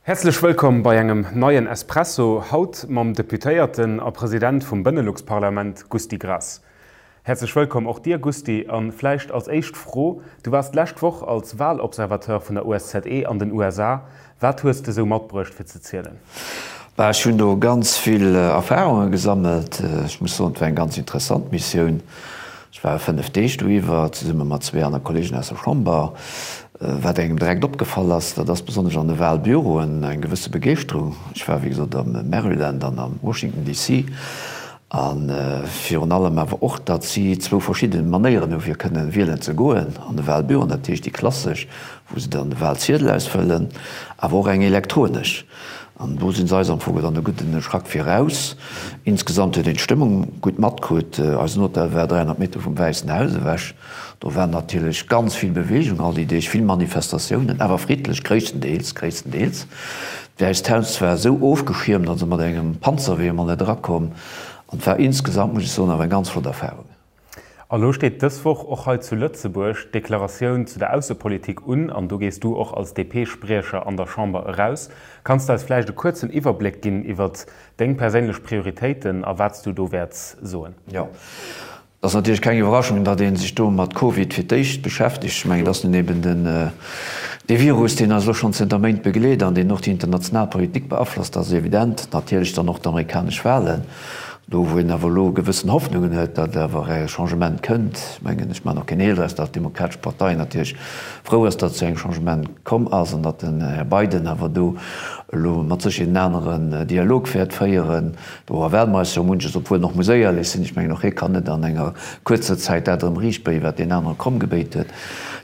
Häerzlech wëllkomm bei engem neien Espresso, haut mam Deputéierten a President vum Benelux-Parlament Gusty Graas. Häerzlech wëllkomm och dir Gusty, a vläicht als éischt Fro, Du waars d'lescht Woch als Wahlobservateur vun der OSZE an den USA. Wat hues de sou matbruecht fir ze zielen? Bah, ech hunn do ganz vill Erfarunge gesammelt. Ech muss soen, et war eng ganz interessant Missioun. Ech war 5 Deeg doiwwer, zesumme mat zwee aner Kollegen aus der Chamber. Wat engem direkt opgefall ass, dat ass besonnesch an de Wahlbüroen eng gewësse Begeeschterung. Ech war, wéi gesot, am Maryland an am Washington DC. A virun allem awer och, datt si zwou verschidde Manéieren hu fir kënne wielen ze goen an de Wahlbüroen, dat heescht déi klassesch, wou se dann de Wahlziedel ausfëllen, awer och eng elektronesch. An do sinn se eis am Fong dann e gudden Schrack viraus. Insgesamt huet een d'Stëmmung gutt matkritt. Eisen Hotel war 300 Meter vum Wäissen Haus ewech. Do war natierlech ganz vill Beweegung all déi Deeg, vill Manifestatiounen, awer friddlech, gréisstendeels, gréisstendeels. D'Wäisst Haus war esou ofgeschiermt, also mat engem Panzerwee emol net erakomm. An et war insgesamt, muss ech soen, awer eng ganz flott Erfarung. A lo steet dës Woch och hei zu Lëtzebuerg d'Deklaratioun zu der Aussepolitik un, an do gees du och als DP-Spriecher an der Chamber eraus. Kanns de eis vläicht e kuerzen Iwwerbléck ginn iwwert deng perséinlech Prioritéiten a wat s du do wäerts soen? Jo, et ass natierlech keng Iwwerraschung, datt ee sech do mat Covid fir d'éischt beschäftegt. Ech mengen, et ass nun eben den, dee Virus, deen eis elo schonn zënter Méint begleet an deen och déi international Politik beaflosst. Dat ass evident. Natierlech dann och d'amerikanesch Wahlen. Do wou een awer elo gewëssen Hoffnungen huet, datt awer e Changement kënnt, ech mengen, ech maachen och keen Heel draus, datt d'Demokratesch Partei natierlech frou ass, datt et zu engem Changement komm ass an datt den Här Biden awer do elo mat Sécherheet en aneren Dialog wäert féieren. Do erwaarde mer eis jo munches, obwuel en och muss éierlech sinn, ech mengen, och hie kann net an enger kuerzer Zäit dat erëm riichtbéien, wat deen anere kromm gebéit huet.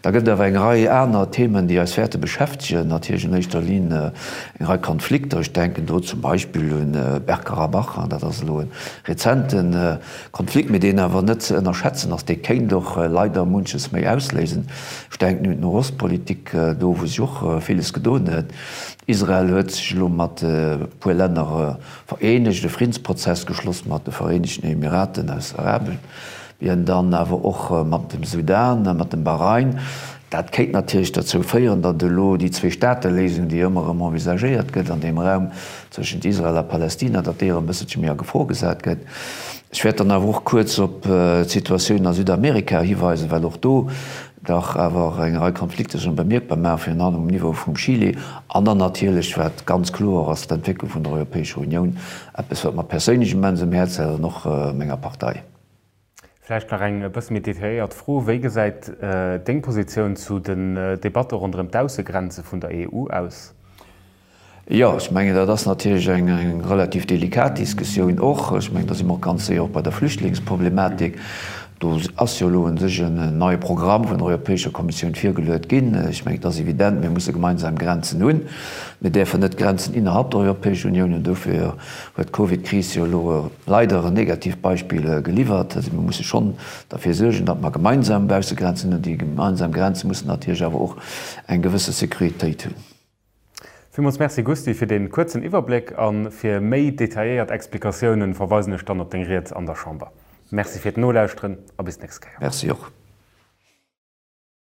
Da gëtt et awer eng Rei aner Themen, déi eis wäerte beschäftegen, natierlech an éischter Linn Eng Rei Konflikter, ech denken do zum Beispill un Bergkarabach, an dat ass elo e rezente Konflikt, mee deen awer net ze ënnerschätzen ass, dee kéint och leider munches méi ausléisen. Ech denken un d'Nohostpolitik, do wou sech och villes gedoen huet. Israel huet sech elo mat e puer Länner vereenegt, e Friddensprozess geschloss mat de Vereenegten Emiraten aus Arabien. Bien, dann awer och mat dem Sudan, mat dem Bahrain. Dat kéint natierlech derzou féieren, datt elo déi Zwee-Staate-Léisung, déi ëmmer erëm envisagéiert gëtt an deem Raum tëschent Israel a Palästina, datt déi erëm e bësselche méi a Gefor gesat gëtt. Ech wäert dann awer och kuerz op d'Situatioun a Südamerika hiweisen, well och do dach awer eng Rei Konflikter sech bemierkbar maachen, virun allem um Niveau vum Chile. An dann natierlech, wat ganz kloer ass, d'Entwécklung vun der Europäescher Unioun, eppes wat mer perséinlech immens um Häerz läit an och menger Partei. Vläicht nach eng e bësse méi detailléiert Fro, Wéi gesäit deng Positioun zu den Debatte ronderëm d'Aussegrenze vun der EU aus? Jo, ech mengen, dat ass natierlech eng relativ delikat Diskussioun och. Ech mengen, da si mer och ganz séier och bei der Flüchtlingsproblematik. Do ass jo elo u sech en neie Programm vun der Europäescher Kommissioun virgeluet ginn. Ech mengen, et ass evident, mir musse gemeinsam Grenzen hunn. Mir däerfen net Grenzen innerhalb der Europäescher Unioun hunn. Dofir huet d'Covidkris jo elo leider en negativt Beispill geliwwert. Also mir musse schonn derfir suergen, datt mer gemeinsam Baussegrenzen hunn. Déi gemeinsam Grenze mussen natierlech awer och eng gewësse Sécuritéit hunn. Villmools Merci Gusty fir dee kuerzen Iwwerbléck a fir méi detailléiert Explikatiounen verweisen ech dann op deng Ried an der Chamber. Merci fir d'Nolauschteren a bis d'nächst Kéier. Merci och.